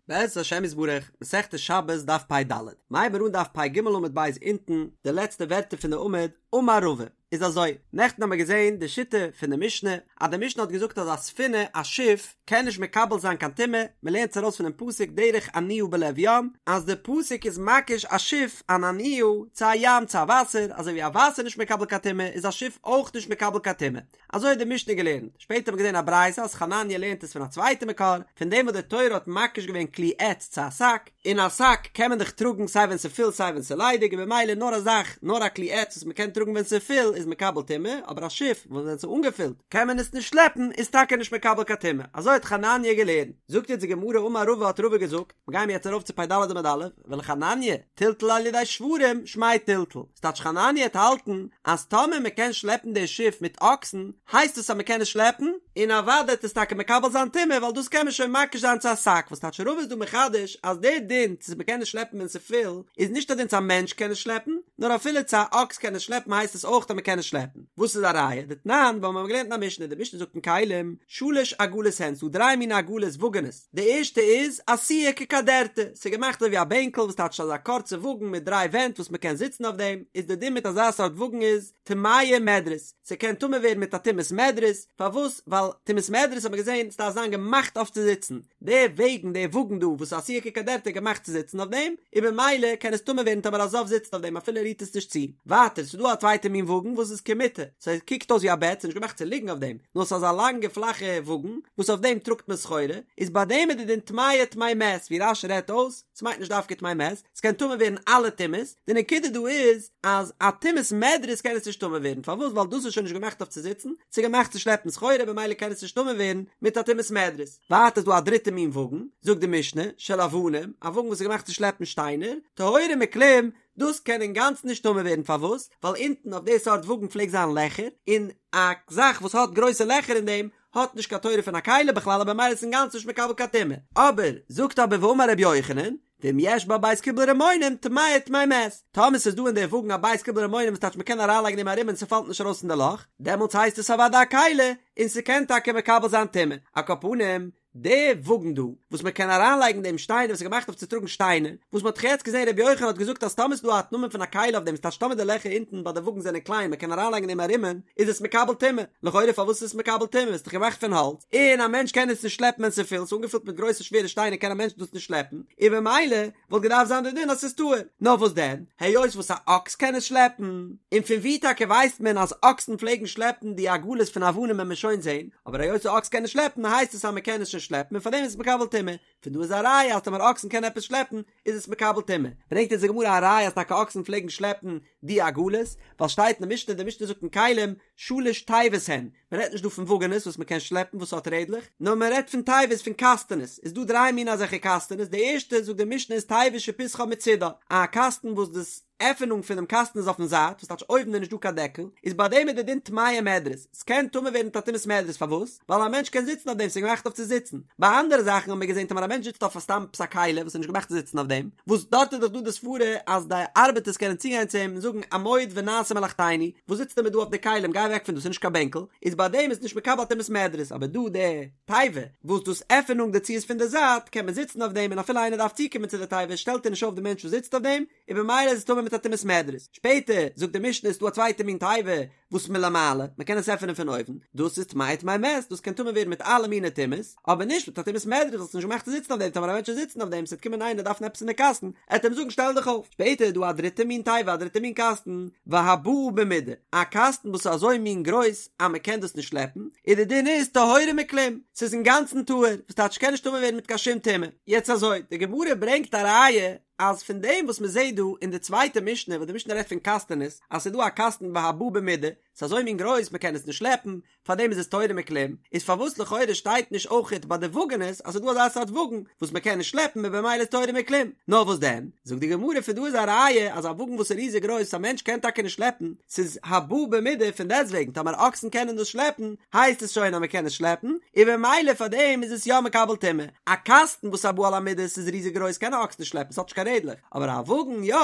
בעזרת השם יתברך, מסכת שבת דף פ"ד, מ'הייבט מיר אן דף פ"ג עמוד ב' אונטן, די לעצטע ווערטער פון די עמוד, אמר רבא, איז אזוי, נעכטן האמיר געזען די שיטה פון די משנה, אז די משנה האט געזאגט אז א ספינה, א שיף, קען נישט מקבל זיין קיין טומאה, מ'לערנט עס ארויס פונעם פסוק דרך אניה בלב ים, אז די פסוק איז מקיש א שיף, אן אניה, צו א ים, צו א וואסער, אזוי ווי א וואסער נישט מקבל קיין טומאה, איז א שיף אויך נישט מקבל קיין טומאה. אזוי האט די משנה געלערנט, שפעטער האט מען געזען א ברייתא אז חנניה לערנט עס פון א צווייטע מקור, פון דעם וואס די תורה האט מקיש געווען כלי עץ צו א שק, און א שק קען מען דאך טראגן סיי ווען ס'איז פול סיי ווען ס'איז ליידיג און במילא נאר א זאך, נאר א כלי עץ וואס מ'קען טראגן ווען ס'איז פול איז מקבל טומאה, אבער א שיף וואס ווען ס'איז אנגעפילט קען מען עס נישט שלעפן איז טאקע נישט מקבל קיין טומאה, אזוי האט חנניה געלערנט. זאגט יעצט די גמרא אמר רבא האט רבא געזאגט, מ'גיימיר יעצט ארויף צו פ"ד עמוד א', ולחנניה, טלטול על ידי שוורים, שמיה טלטול. ס'טייטש חנניה וועט האלטן אז טאמער מ'קען שלעפן די שיף מיט אקסן, הייסט עס אז מ'קען עס שלעפן, און אוודאי וועט עס טאקע מקבל זיין טומאה ווייל דאס קען מען שוין מקיש זיין צו א שק, וואס טייטש רבא איז דא מחדש אז די דין צו מ'קען עס שלעפן ווען ס'פול איז נישט א דין צו א מענטש קען עס שלעפן, נאר אפילו צו א אקס קען עס שלעפן הייסט עס אויך אז מ'קען עס שלעפן. וואס איז א ראיה? דתנן, ווייל מ'האט געלערנט אין א משנה, די משנה זאגט אין כלים, שלש עגלות הן, ס'דא דריי מיני עגלות וואגענעס, די ערשטע איז עשויה כקדרתא, ס'איז געמאכט אזוי ווי א בענקל וואס טייטש אזא קורצע וואגן מיט דריי ווענט וואס מ'קען זיצן אויף דעם, איז די דין מיט אזא סארט וואגן איז טמאה מדרס, ס'קען טמא ווערן מיט א טומאת מדרס, פארוואס? ווייל טומאת מדרס האט מען געזען ס'דארף זיין געמאכט אויף צו זיצן, די וועגן די וואגן דא וואס איז עשויה כקדרתא איז געמאכט צו זיצן אויף דעם, און במילא קען עס טמא ווערן טאמער א זב זיצט אויף דעם אפילו ער רירט עס נישט צו. ווייטער ס'איז דא א צווייטע מין וואגן וואס איז כמיטה, ס'קוקט אויס ווי א בעט, ס'איז נישט געמאכט צו ליגן אויף דעם, נאר ס'איז אזא לאנגע פלאכע וואגן וואס אויף דעם טראגט מען סחורה, איז ביי דעם איז די דין טמאה טמא מת, ווי רש"י רעדט אויס, ס'מיינט נישט דווקא טמא מת, ס'קען טמא ווערן אלע טומאות, די נקודה דא איז אז א טומאת מדרס קען עס נישט טמא ווערן, פארוואס? ווייל דאס איז שוין נישט געמאכט אויף צו זיצן, ס'איז געמאכט צו שלעפן סחורה במילא קען עס נישט טמא ווערן מיט א טומאת מדרס. ווייטער איז דא א דריטע מין וואגן, זאגט די משנה, של אבנים, א וואגן וואס איז געמאכט צו שלעפן שטיינער, טהורה מכלום, דאס קען אינגאנצן נישט טמא ווערן, פארוואס? ווייל אונטן אויף די סארט וואגן פלעגט זיין לעכער, און א זאך וואס האט גרויסע לעכער אין דעם האט נישט קיין תורה פון א כלי בכלל און במילא איז עס אינגאנצן נישט מקבל קיין טומאה. אבער, זאגט אבער ואמר רבי יוחנן, ואם יש בה בית קיבול רימונים טמאה טמא מת, טאמער ס'איז דא אין די וואגן א בית קיבול רימונים וואס טייטש מ'קען אריינלייגן אין דעם א רימון ס'פאלט נישט ארויס אין די לאך, דעמאלטס הייסט עס אוודאי א כלי און ס'קען טאקע מקבל זיין טומאה. על כל פנים, די וואגן דא, וואס מען קען אריינלייגן דעם שטיינער וואס איז געמאכט אויף צו טראגן שטיינער, וואס מען האט דאך יעצט געזען רבי יוחנן האט געזאגט אז טאמער ס'איז דא א נאמען פון א כלי אויף דעם ס'טייטש טאמער די לעכער אונטן ביי די וואגן זענען קליין מען קען אריינלייגן דעם א רימון, איז עס מקבל טומאה, לכאורה פארוואס איז עס מקבל טומאה, ס'איז דאך געמאכט פון האלץ, און א מענטש קען עס נישט שלעפן ווען ס'איז פול, ס'איז אנגעפילט מיט גרויסע שווערע שטיינער קען א מענטש דאס נישט שלעפן, און במילא וואלט געדארפט זיין די דין אז ס'איז טהור, נאר וואס דען, היות וואס א אקס קען עס שלעפן, און פון ווי טאקע ווייסט מען אז אקסן פלעגן שלעפן די עגלות פון אבנים וועט מען שוין זען, אבער היות א אקס קען עס שלעפן הייסט עס אז מען קען עס שוין שלעפן און פארדעם איז עס מקבל טומאה, פון דא איז א ראיה אז טאמער אקסן קענען עפעס שלעפן איז עס מקבל טומאה, ברענגט אונז די גמרא א ראיה אז טאקע אקסן פלעגן שלעפן די עגלות, ווייל שטייט אין די משנה, די משנה זאגט אין כלים, שלש תיבות הן, מען רעדט נישט דא פון וואגענעס וואס מען קען שלעפן וואס האט רעדלעך, נאר מען רעדט פון תיבות פון קאסטענעס, איז דא דריי מיני אזעלכע קאסטענעס, די ערשטע זאגט די משנה איז תיבה שפתחה מצידה, א קאסטן וואס דאס עפענונג פונעם קאסטן איז אויפן זייט, וואס טייטש אויבן איז נישט דא קיין דעקל, איז ביי דעם איז די דין טמאה מדרס, ס'קען טמא ווערן מיט א טומאת מדרס, פארוואס? ווייל א מענטש קען זיצן אויף דעם, ס'איז געמאכט אויף צו זיצן. ביי אנדערע זאכן האבן מיר געזען טאמער א מענטש זיצט אויף א סתם עפעס א כלי וואס איז נישט געמאכט צו זיצן אויף דעם, וואס דארט איז דאך דא די סברה אז די ארבעטערס קענען צוגיין צו אים און זאגן עמוד ונעשה מלאכתינו, וואס זיצסטו מיר דא אויף די כלים גיי אוועק פון דא ס'איז נישט קיין בענקל, איז ביי דעם איז נישט מקבל א טומאת מדרס, אבער דא די תיבה וואס דאס עפענונג דערצו איז פון די זייט קען מען זיצן אויף דעם און אפילו איינער דארף צוקומען צו די תיבה שטעלט ער נישט אויף די מענטש וואס זיצט אויף דעם, און במילא איז עס טמא מיט א טומאת מדרס. שפעטער זאגט די משנה איז דא א צווייטע מין תיבה וואס מלמעלה, מען קען עס עפענען פון אויבן, דאס איז טמאה טמא מת, דאס קען טמא ווערן מיט אלע מיני טומאות, אבער נישט מיט א טומאת מדרס, ווייל ס'איז נישט געמאכט צו זיצן אויף דעם, טאמער א מענטש וועט זיצן אויף דעם, ס'וועט קומען איינער דארפן עפעס אין די קאסטן, עט אים זאגן שטעל דיך אויף. שפעטער איז דא א דריטע מין תיבה, א דריטע מין קאסטן, והבאה במידה, א קאסטן וואס איז אזוי מין גרויס אז מען קען דאס נישט שלעפן, און די דין איז טהורה מכלום, ס'איז אינגאנצן טהור, וואס טייטש ס'קען נישט טמא ווערן מיט קיין שום טומאה. יעצט אזוי, די גמרא ברענגט א ראיה אז פון דעם וואס מען זעט דא אין די צווייטע משנה וואס די משנה רעדט פון קאסטענעס אז ס'איז דא א קאסטן והבאה במידה, ס'איז אזוי מין גרויס מען קען עס נישט שלעפן, פארדעם איז עס טהורה מכלום, איז פארוואס לכאורה שטייט נישט אויכעט ביי די וואגענעס אז ס'איז דא אזא סארט וואגן וואס מען קען נישט שלעפן און במילא איז טהורה מכלום, נאר וואס דען? זאגט די גמרא פון דא איז א ראיה אז א וואגן וואס איז ריזיג גרויס א מענטש קען טאקע נישט שלעפן, ס'איז הבאה במידה פון דעסטוועגן טאמער אקסן קענען דאס שלעפן הייסט עס שוין אז מען קען עס שלעפן, און במילא פארדעם איז עס יא מקבל טומאה. א קאסטן וואס הבא על המידה ס'איז ריזיג גרויס קען א אקס נישט שלעפן ס'האט נישט קיין רעדלעך, אבער א וואגן יא,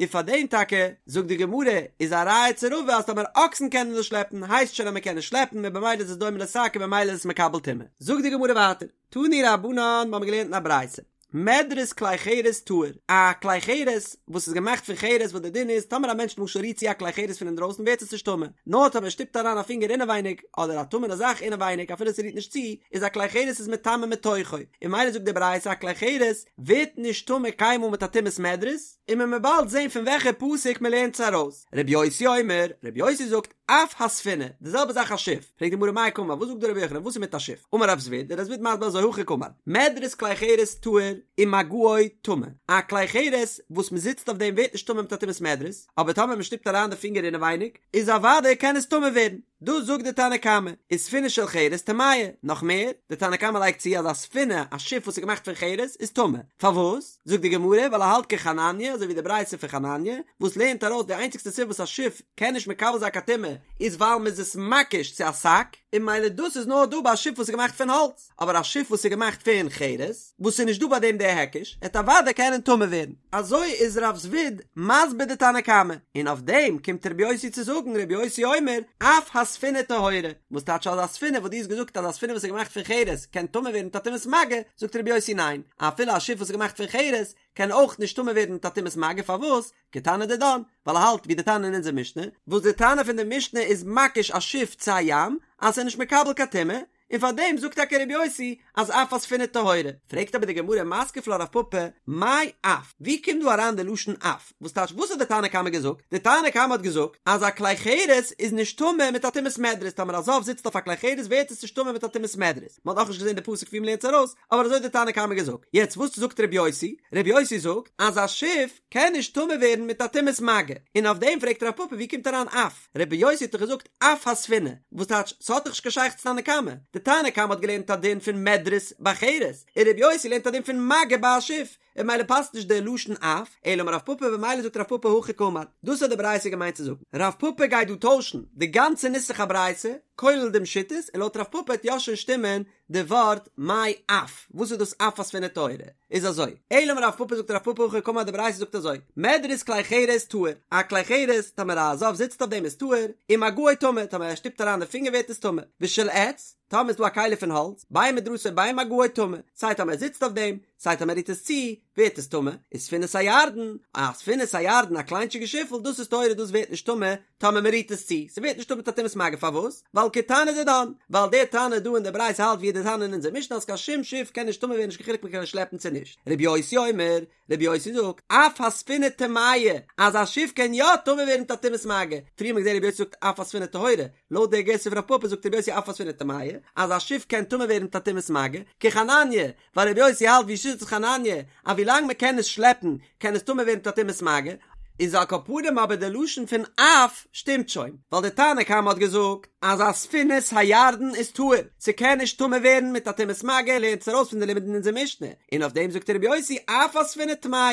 און פאר דעם טאקע, זאגט די גמרא, איז א ראיה צו רבא אז טאמער אקסן קענען דאס שלעפן הייסט שוין אז מען קען עס שלעפן און במילא איז עס דומה לשק און במילא איז עס מקבל טומאה. זאגט די גמרא ווייטער, תנו רבנן, מ'האמיר געלערנט אין א ברייתא. מדרס כלי חרס טהור, א כלי חרס וואס איז געמאכט פון חרס וואס די דין איז טאמער א מענטש למשל רירט צו א כלי חרס פון אינדרויסן ווערט עס נישט טמא, נאר טאמער ער שטופט אריין א פינגער אינעווייניג אדער א טמא'נע זאך אינעווייניג אפילו ס'רירט נישט צו, איז א כלי חרס איז מטמא מתוכו, און ממילא זאגט די ברייתא א כלי חרס ווערט נישט טמא קיינמאל מיט א טומאת מדרס, און מען וועט באלד זען פון וועלכע פסוק מען לערנט עס ארויס. רבי יוסי אומר, רבי יוסי זאגט, אף הספינה, די זעלבע זאך א שיף, פרעגט די גמרא מאי קאמר, וואס זאגט דא רבי יוחנן, וואס איז מיט א שיף? אמר רב זביד, דער רב זביד מסביר אזוי הכי קאמר, מדרס כלי חרס טהור ומגעו טמא, א כלי חרס וואס מען זיצט אויף דעם ווערט נישט טמא מיט א טומאת מדרס, אבער טאמער מען שטופט אריין די פינגער אינעווייניג, איז אוודאי קען עס טמא ווערן. דאס זאגט די תנא קמא, וספינה של חרס טמאה, נאך מער, די תנא קמא לייגט צו אז א ספינה, א שיף וואס איז געמאכט פון חרס, איז טמא. פארוואס? זאגט די גמרא, ווייל ער האלט כחנניה, אזוי ווי די ברייתא פון חנניה, וואס לערנט ארויס די איינציגסטע סיבה וואס א שיף קען נישט מקבל זיין קיין טומאה, איז ווייל מ'איז עס מקיש צו א שק, און ממילא דאס איז נאר דא ביי א שיף וואס איז געמאכט פון האלץ, אבער א שיף וואס איז געמאכט פון חרס, וואס איז נישט דא ביי דעם דער היקש, עט אוודאי קענען טמא ווערן. אזוי איז רב זביד מסביר די תנא קמא, און אויף דעם קומט רבי יוסי צו זאגן, רבי יוסי אומר, אף הספינה טהורה, וואס טייטש אז א ספינה וואס דו האסט געזאגט אז א ספינה וואס איז געמאכט פון חרס קען טמא ווערן מיט א טומאת מגע, זאגט רבי יוסי ניין, אפילו א שיף וואס איז געמאכט פון חרס קען אויך נישט טמא ווערן מיט א טומאת מגע, פארוואס? כתנא דידן, ווייל ער האלט ווי די תנא אין אונזער משנה, וואס די תנא פון די משנה איז מקיש א שיף צו א ים, אז ס'איז נישט מקבל קיין טומאה, און פאר דעם זאגט טאקע רבי יוסי אז אף הספינה טהורה. פרעגט אבער די גמרא מתקיף לה רב פפא, מאי אף? ווי קומט דא אריין די לשון אף? וואס טייטש וואס האט די תנא קמא געזאגט? די תנא קמא האט געזאגט אז א כלי חרס איז נישט טמא מיט א טומאת מדרס, טאמער א זב זיצט אויף א כלי חרס ווערט עס נישט טמא מיט א טומאת מדרס, מען האט נאכנישט געזען די פסוק ווי מען לערנט עס ארויס, אבער אזוי האט די תנא קמא געזאגט. יעצט וואס זאגט רבי יוסי? רבי יוסי זאגט אז א שיף קען נישט טמא ווערן מיט א טומאת מגע, און אויף דעם פרעגט רב פפא ווי קומט אריין אף? רבי יוסי האט דאך געזאגט אף הספינה, וואס טייטש ס'האט דאך נישט קיין שייכות צו תנא קמא, די תנא קמא האט געלערנט א דין פון מדרס ביי חרס, און רבי יוסי לערנט א דין פון מגע ביי א שיף, און ממילא פאסט נישט די לשון אף, אלא אמר רב פפא במילא זאגט רב פפא הכי קאמר, דאס האט די ברייתא געמיינט צו זאגן, רב פפא גייט דא טוישן די גאנצע נוסח הברייתא, כולל דעם שיטות, און לויט רב פפא וועט יא שוין שטימען די ווארט מאי אף, וואס איז דאס אף הספינה טהורה? איז אזוי, אלא אמר רב פפא זאגט רב פפא הכי קאמר די ברייתא זאגט אזוי, מדרס כלי חרס טהור, א כלי חרס טאמער א זב זיצט אויף דעם איז טהור, ומגעו טמא, טאמער ער שטופט אריין די פינגער ווערט עס טמא, ושל עץ, טאמער איז דא א כלי פון האלץ, בין מדרסו בין מגעו טמא, סיי טאמער ער זיצט אויף דעם, סיי טאמער ער רירט עס צו, ווערט עס טמא, וספינת הירדן, א ספינת הירדן א קליינטשיגע שיפל דאס איז טהורה דאס ווערט נישט טמא, טאמער מען רירט עס צו, ס'ווערט נישט טמא מיט א טומאת מגע פארוואס? ווייל כתנא דידן, ווייל דער תנא דא אין די ברייתא האלט ווי דער תנא אין אונזער משנה אז קיין שום שיף קען נישט טמא ווערן נישט קיין חילוק מען קען עס שלעפן צו נישט. רבי יוסי אומר, רבי יוסי זאגט, אף הספינה טמאה, אז א שיף קען יא טמא ווערן מיט א טומאת מגע, פריער האט מען געזען רבי יוסי זאגט אף הספינה טהורה, לויט דער גירסא פון רב פפא זאגט רבי יוסי אף הספינה טמאה, אז א שיף קען טמא ווערן מיט א טומאת מגע, כחנניה, ווייל רבי יוסי האלט ווי שיטת חנניה אז ווילאנג מען קען עס שלעפן קען עס טמא ווערן מיט א טומאת מגע, איז על כל פנים אבער די לשון פון אף שטימט שוין, ווייל די תנא קמא האט געזאגט אז א ספינת הירדן איז טהור, ס'קען נישט טמא ווערן מיט א טומאת מגע, לערנט עס ארויס פון די לימוד אין אונזער משנה, און אויף דעם זאגט רבי יוסי אף הספינה טמאה,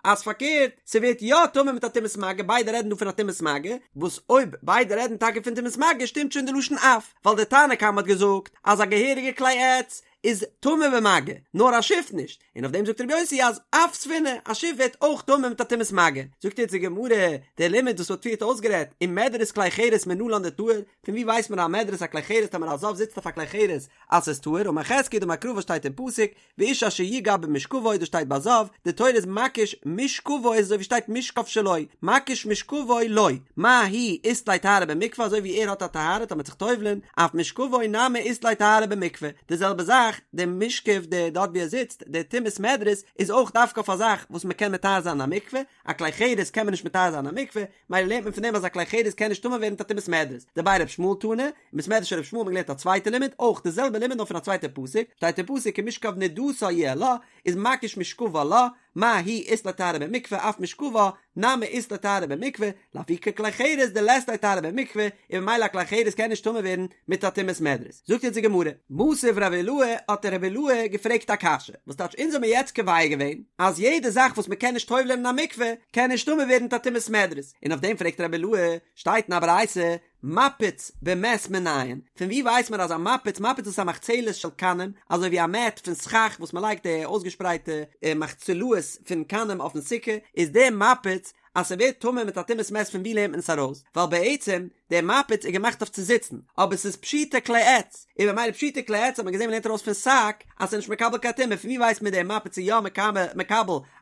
אז פארקערט ס'ווערט יא טמא מיט א טומאת מגע, ביידע רעדן דא פון א טומאת מגע, וואס אויב ביידע רעדן טאקע פון טומאת מגע שטימט שוין די לשון אף, ווייל די תנא קמא האט געזאגט אז א געהעריגע כלי עץ איז טמא במגע, נאר א שיף נישט, און אויף דעם זאגט רבי יוסי אז אף ספינה, א שיף ווערט אויך טמא מיט א טומאת מגע. זאגט יעצט די גמרא, דער לימוד וואס מ'האט פריערט אויסגערעדט, ומדרס כלי חרס מנלן דטהור, פון ווי ווייסט מען א מדרס א כלי חרס טאמער א זב זיצט אויף א כלי חרס אז ס'איז טהור, אמר חזקיה דאמר קרא וואס שטייט אין פסוק, ואיש אשר יגע במשכבו דאס שטייט ביי זב, די תורה איז מקיש משכבו איז אזוי ווי שטייט משכב שלו, מקיש משכבו לו, מה הוא אית ליה טהרה במקווה אזוי ווי ער האט א טהרה טאמער זיך טובל'ען, אף משכבו נמי אית ליה טהרה במקווה, די זעלבע זאך די משכב די דארט ווי ער זיצט די טומאת מדרס איז אויך דווקא אויף א זאך וואס מען קען מטהר זיין אין א מקווה, א כלי חרס קען מען נישט מטהר זיין אין א מקווה, מילא לערנט מען פון דעם אז א כלי חרס קען נישט טמא ווערן מיט א טומאת מדרס, דבי ר' ישמעאל תנא, אין בית מדרש של ר' ישמעאל האט מען געלערנט א צווייטע לימוד, אויך די זעלבע לימוד נאר פון א צווייטע פסוק, שטייט אין פסוק כי משכב נדתה יהיה לה, איז מקיש משכבה לה, מה הוא אית ליה טהרה במקווה אף משכבה נמי אית ליה טהרה במקווה, לאפוקי כלי חרס דלית ליה טהרה במקווה, און ממילא א כלי חרס קען נישט טמא ווערן מיט א טומאת מדרס. זאגט יעצט די גמרא, מתיב רב אילעא האט רב אילעא געפרעגט א קשיא, וואס טייטש אונז האמיר יעצט קובע געווען אז יעדע זאך וואס מען קען נישט טובל'ען אין א מקווה קען נישט טמא ווערן מיט א טומאת מדרס, און אויף דעם פרעגט רב אילעא, שטייט אין א ברייתא, מפץ במת מנין, פון ווי ווייסט מען אז א מפץ, מפץ איז א מחצלת של קנים, אזוי ווי א מעט פון סכך וואס מען לייגט די אויסגעשפרייטע מחצלאות פון קנים אויפן סוכה, איז דער מפץ אז ס'ווערט טמא מיט א טומאת מת פון ווי לערנט מען עס ארויס? ווייל בעצם דער מפץ איז געמאכט אויף צו זיצן, אבער ס'איז פשוטי כלי עץ, און במילא פשוטי כלי עץ האט מען געזען מ'לערנט ארויס פון שק אז ס'איז נישט מקבל קיין טומאה, פון ווי ווייסט מען דער מפץ איז יא מקבל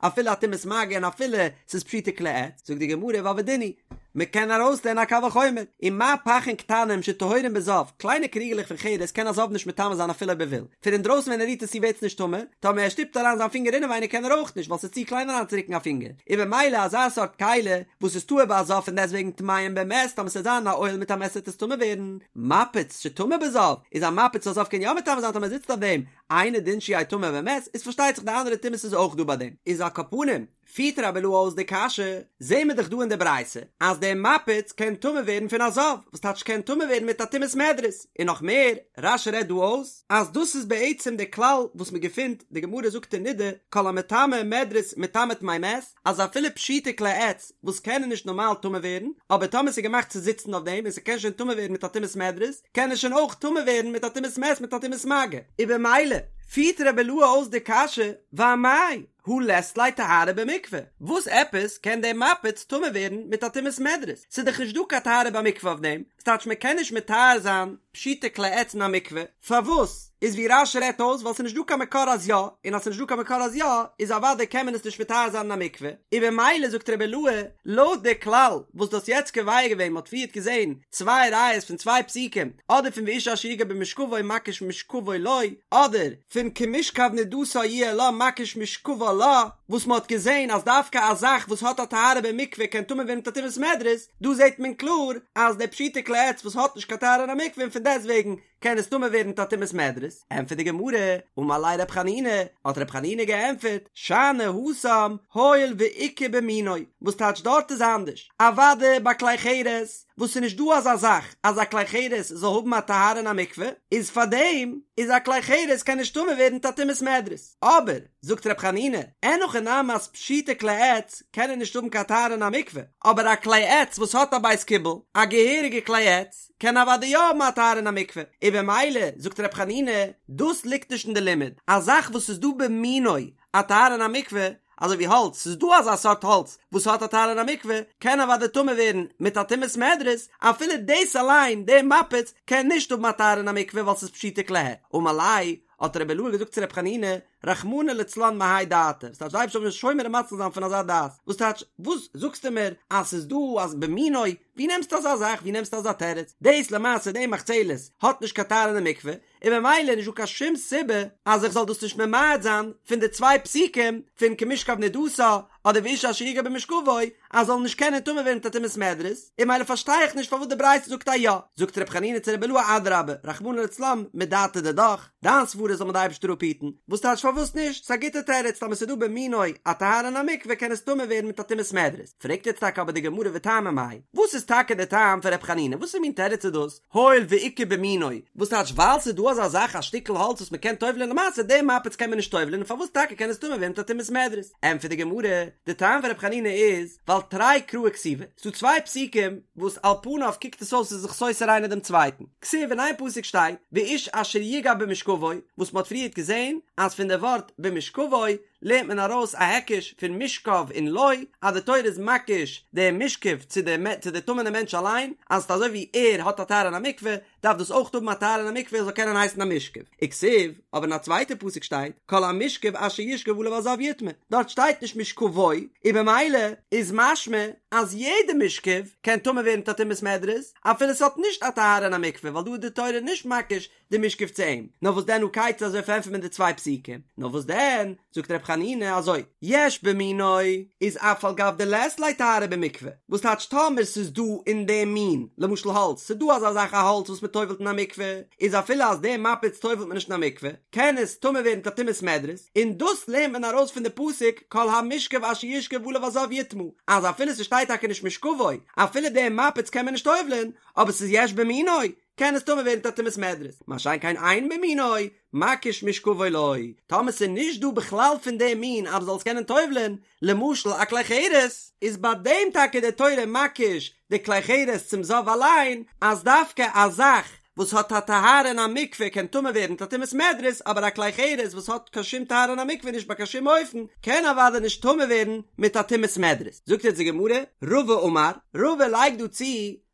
אפילו א טומאת מגע און אפילו ס'איז פשוטי כלי עץ? זאגט די גמרא ווייל ודין הוא, מ'קען ארויסלערנען א קל וחומר, ומה פכין קטנים שטהורין בזב, קליינע קריגעלעך פון חרס קען א זב נישט מטמא זיין אפילו אויב ער וויל, פון אינדרויסן ווען ער רירט עס צו ווערט עס נישט טמא, טאמער ער שטופט אריין זיין פינגער אינעווייניג קען ער אויך נישט ווייל ס'איז צו קליין אריינצורוקן א פינגער, און במילא אזא סארט כלי וואס איז טהור ביי א זב פון דעסטוועגן טמאים במת טאמער ס'וועט זיין א אוהל מיט א מת וועט עס טמא ווערן, מפץ שטמא בזב, איז א מפץ וואס א זב קען יא מטמא זיין טאמער ער זיצט אויף דעם, אינו דין שיהא טמא במת, איז פארשטייט זיך די אנדערע טומאות איז אויך דא ביי דעם. איז על כל פנים, פירט רבי אילעא אויס די קשיא, זעהן מיר דאך דא אין די ברייתא אז דער מפץ קען טמא ווערן פון א זב, וואס טייטש קען טמא ווערן מיט א טומאת מדרס, און נאך מער, רש"י רעדט דא אויס אז דאס איז בעצם דער כלל וואס מען געפינט, די גמרא זאגט אין נדה, כל המטמא מדרס מטמא טמאי מת, אז אפילו פשוטי כלי עץ וואס קענען נישט נארמאל טמא ווערן, אבער טאמער ס'איז געמאכט צו זיצן אויף דעם און ס'קען שוין טמא ווערן מיט א טומאת מדרס, קען עס שוין אויך טמא ווערן מיט א טומאת מת מיט א טומאת מגע. און במילא פירט רבי אילעא אויס די קשיא, ואמאי הא לית ליה טהרה במקווה, וואס עפעס קען דער מפץ טמא ווערן מיט א טומאת מדרס? ס'איז דאך נישט דא קיין טהרה במקווה אויף דעם, ס'טייטש מען קען נישט מטהר זיין פשוטי כלי עץ אין א מקווה, פארוואס? איז ווי רש"י רעדט אויס ווייל ס'איז נישט דא קיין מקור אז יא, און אז ס'איז נישט דא קיין מקור אז יא, איז אוודאי קען מען עס נישט מטהר זיין אין א מקווה, און במילא זאגט רבי אילעא, לויט די כלל וואס דו האסט יעצט קובע געווען, מ'האט פריערט געזען צוויי ראיות פון צוויי פסוקים, אדער פון ואיש אשר יגע במשכבו מקיש משכבו לו, אדער פון כמשכב נדתה יהיה לה מקיש משכבה לה, וואס מ'האט געזען אז דווקא א זאך וואס האט א טהרה במקווה קען טמא ווערן מיט א טומאת מדרס, דא זעט מען קלאר אז די פשוטי כלי עץ וואס האט נישט קיין טהרה אין א מקווה און פון דעסטוועגן קען עס טמא ווערן מיט א טומאת מדרס, ענטפערט די גמרא, אמר ליה רב חנינא, האט רב חנינא געענטפערט, שאני התם, הואיל ואיכא במינו, וואס טייטש דארט איז אנדערש, אוודאי ביי כלי חרס, וואס ס'איז נישט דא אזא זאך אז א כלי חרס זאל האבן א טהרה אין א מקווה, איז פארדעם איז א כלי חרס קען נישט טמא ווערן מיט א טומאת מדרס, אבער, זאגט רב חנינא, אין הכי נמי אז פשוטי כלי עץ קענען נישט האבן קיין טהרה אין א מקווה, אבער א כלי עץ וואס האט א בית קיבול, א געהעריגע כלי עץ, קען אוודאי יא האבן א טהרה אין א מקווה, און במילא, זאגט רב חנינא, דאס ליגט נישט אין די לימוד, א זאך וואס איז דא במינו א טהרה אין א מקווה, אזוי ווי האלץ, ס'איז דא אזא סארט האלץ וואס האט א טהרה אין א מקווה, קען אוודאי טמא ווערן מיט א טומאת מדרס, אפילו דאס אליין, דער מפץ, קען נישט האבן א טהרה אין א מקווה ווייל ס'איז פשוטי כלי עץ. אמר ליה, האט רבי אילעא געזאגט צו רבי חנינא, רחמנא לצלן מהאי דעתא, וואס טייטש די אייבערשטער זאל מיר שומר און מציל זיין פון אזא דעת, וואס טייטש, וואס זאגסטו מיר אז ס'איז דא אז במינו, ווי נעמסטו אזא זאך, ווי נעמסטו אזא תירוץ, דאס למעשה די מחצלת האט נישט קיין טהרה אין די מקווה, און במילא איז נישט דא קיין שום סיבה אז איך זאל דאס נישט ממעט זיין פון די צוויי פסוקים פון כמשכב נדתה אדער ואיש אשר יגע במשכבו אז זאל נישט קענען טמא ווערן מיט א טומאת מדרס, און במילא פארשטיי איך נישט פארוואס די ברייתא זאגט א יא, זאגט ר' חנינא צו רבי אילעא אדרבה רחמנא לצלן מדעתא דידך, דיין סברה זאל מיר די אייבערשטער אפהיטן, וואס טייטש פארוואס נישט, ס'איז א גוטע תירוץ טאמער ס'איז דא במינו א טהרה אין א מקווה קען עס טמא ווערן מיט א טומאת מדרס, פרעגט יעצט טאקע אבער די גמרא וטעמא מאי, וואס איז טאקע די טעם פון ר' חנינא, וואס מין תירוץ איז דאס, הואיל ואיכא במינו, וואס טייטש ווייל ס'איז דא אזא זאך א שטיקל האלץ וואס מ'קען טובל'ען למעשה דעם מפץ קען מען נישט טובל'ען און פארוואס טאקע קען עס טמא ווערן מיט א טומאת מדרס? ענטפערט די גמרא, די טעם פון ר' חנינא איז, ווייל תרי קראי כתיבי, ס'דא צוויי פסוקים וואס על פניו קוקט עס אויס ס'איז זיך סותר איינער דעם צווייטן, כתיב אין איין פסוק שטייט ואיש אשר יגע במשכבו, וואס מ'האט פריערט געזען אז פון די ווארט במשכבו לערנט מען ארויס א היקש פון משכב און לו, אז די תורה איז מקיש די משכב צו די צו די טמא'נע מענטש אליין, אז ס'איז אזוי ווי ער האט א טהרה אין א מקווה, דארף דאס אויך האבן א טהרה אין א מקווה עס זאל קענען הייסן א משכב. וכתיב, אבער אין א צווייטע פסוק שטייט, כל המשכב אשר ישכב עליו הזב יטמא, דארט שטייט נישט משכבו, און במילא איז משמע אז יעדע משכב קען טמא ווערן מיט א טומאת מדרס, אפילו ס'האט נישט א טהרה אין א מקווה, ווייל דא איז די תורה נישט מקיש די משכב צו אים, נאר וואס דען הא כיצד אזוי פארענטפערט מען די צוויי פסוקים, נאר וואס דען, זאגט ר' חנינא אזוי, יש במינו איז אף על גב דלית ליה טהרה במקווה, וואס טייטש טאמער ס'איז דא אין דעם מין, למשל האלץ, ס'איז דא אזא זאך א האלץ וואס מ'טובל'ט אין א מקווה, איז אפילו אז דעם מפץ טובל'ט מען נישט אין א מקווה, קען עס טמא ווערן מיט א טומאת מדרס, און דאס לערנט מען ארויס פון די פסוק כל המשכב אשר ישכב עליו הזב יטמא, אז אפילו ס'שטייט טאקע נישט משכבו, אפילו דעם מפץ קען מען נישט טובל'ען, אבער ס'איז יש במינו, קען עס טמא ווערן מיט א טומאת מדרס, מה שאין כן אין במינו, מקיש משכבו לא, טאמער ס'איז נישט דא בכלל פון דעם מין אז מ'זאל עס קענען טובל'ען, למשל א כלי חרס, איז ביי דעם טאקע די תורה מקיש די כלי חרס צום זב אליין, אז דווקא א זאך וואס האט א טהרה אין א מקווה קען טמא ווערן מיט א טומאת מדרס, אבער א כלי חרס וואס האט קיין שום טהרה אין א מקווה נישט ביי קיין שום אופן, קען אוודאי נישט טמא ווערן מיט א טומאת מדרס. זאגט יעצט די גמרא, רבא אמר, רבא לייגט דא צו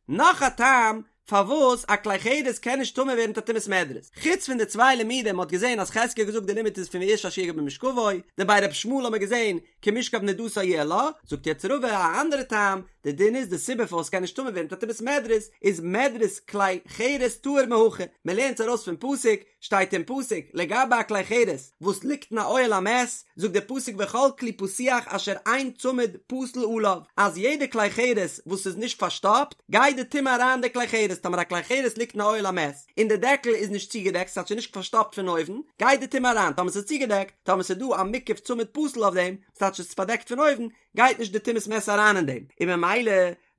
נאך א טעם פארוואס א כלי חרס קען נישט טמא ווערן מיט א טומאת מדרס, חוץ פון די צוויי לימודים מ'האט געזען אז חזקיה האט געזאגט די לימוד איז פון ואיש אשר יגע במשכבו, דבי ר' ישמעאל האט מען געזען כמשכב נדתה יהיה לה, זאגט יעצט רבא א אנדערע טעם, די דין איז די סיבה פארוואס ס'קען נישט טמא ווערן מיט א טומאת מדרס איז מדרס כלי חרס טהור מהכא, מ'לערנט עס ארויס פון פסוק, שטייט אין פסוק לגבי א כלי חרס וואס ליגט אין א אוהל המת, זאגט דער פסוק וכל כלי פתוח אשר אין צמיד פתיל עליו, אז יעדע כלי חרס וואס איז נישט פארשטאפט, גייט די טומאה אריין אין די כלי חרס, טאמער א כלי חרס ליגט אין א אוהל המת, און די דעקל איז נישט צוגעדעקט, ס'הייסט ס'איז נישט פארשטאפט פון אויבן, גייט די טומאה אריין, טאמער ס'איז צוגעדעקט, טאמער ס'איז דא א מוקף צמיד פתיל אויף דעם, ס'טייטש ס'איז פארדעקט פון אויבן, גייט נישט די טומאת מת אריין אין דעם, און ממילא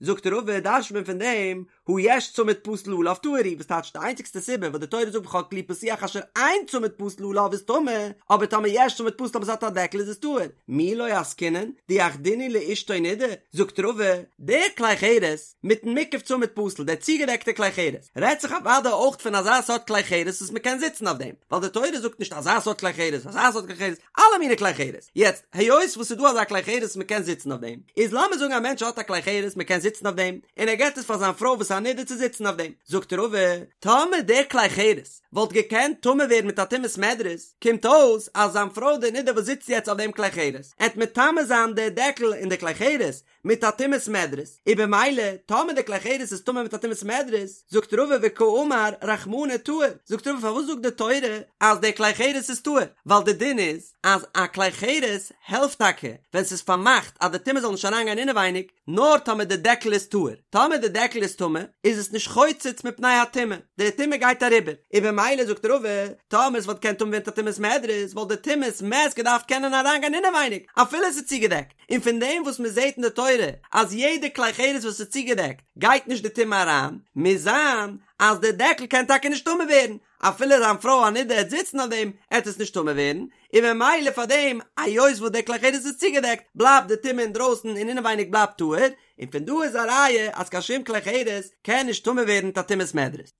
זאגט רבא דרש'ט מען פון דעם, הא יש צמיד פתיל עליו טהור הוא, וואס טייטש די איינציגסטע סיבה וואס די תורה זאגט וכל כלי פתוח אשר אין צמיד פתיל עליו איז טמא, אבער טאמער יש צמיד פתיל טאמער ס'האט א דעקל איז עס טהור, מי לא עסקינן, דיחדינהו לאשתו נידה, זאגט רבא, דער כלי חרס, מיטן מוקף צמיד פתיל, דער צוגעדעקטער כלי חרס, רעדט זיך אוודאי אויך פון אזא סארט כלי חרס וואס מ'קען זיצן אויף דעם, ווייל די תורה זאגט נישט אזא סארט כלי חרס, אזא סארט כלי חרס, אלע מיני כלי חרס. יעצט, היות וואס ס'איז דא אזא כלי חרס וואס מ'קען זיצן אויף דעם, איז לאמיר זאגן א מענטש האט א כלי חרס מ'קען זיצן אויף דעם, און ער געבט עס פאר זיין פרוי וואס איז א נדה צו זיצן אויף דעם, זאגט רבא, טאמער דער כלי חרס וואלט געקענט טמא ווערן מיט א טומאת מדרס, קומט אויס אז זיין פרוי די נדה וואס זיצט יעצט אויף דעם כלי חרס, עט מטמא זיין די דעקל און די כלי חרס, מיט א טומאת מדרס, און במילא טאמער די כלי חרס איז טמא מיט א טומאת מדרס, זאגט רבא וקאמר רחמנא טהור, זאגט רבא פארוואס זאגט די תורה אז די כלי חרס איז טהור, ווייל די דין איז אז א כלי חרס העלפט טאקע ווען ס'איז פארמאכט אז די טומאה זאל נישט אריינגיין אינעווייניג, נאר טאמער די דעקל איז טהור, טאמער די דעקל איז טמא איז עס נישט חוצץ מפני הטומאה, די טומאה גייט אריבער, און במילא זאגט רבא, טאמער עס וואלט געקענט טמא ווערן מיט א טומאת מדרס וואלט די טומאת מת געדארפט קענען אריינגיין אינעווייניג אפילו עס איז צוגעדעקט. און פון דעם וואס מען זעט אין די תורה אז יעדע כלי חרס וואס איז צוגעדעקט גייט נישט די טומאה אריין, מוז זיין אז די דעקל קען טאקע נישט טמא ווערן, אפילו זיין פרוי א נידה עט זיצן אויף דעם עט עס נישט טמא ווערן, און ממילא פאר דעם היות וואס די כלי חרס איז צוגעדעקט בלייבט די טומאה אינדרויסן און אינעווייניג בלייבט טהור, און פון דא איז א ראיה אז קיין שום כלי חרס קען נישט טמא ווערן מיט א טומאת מדרס.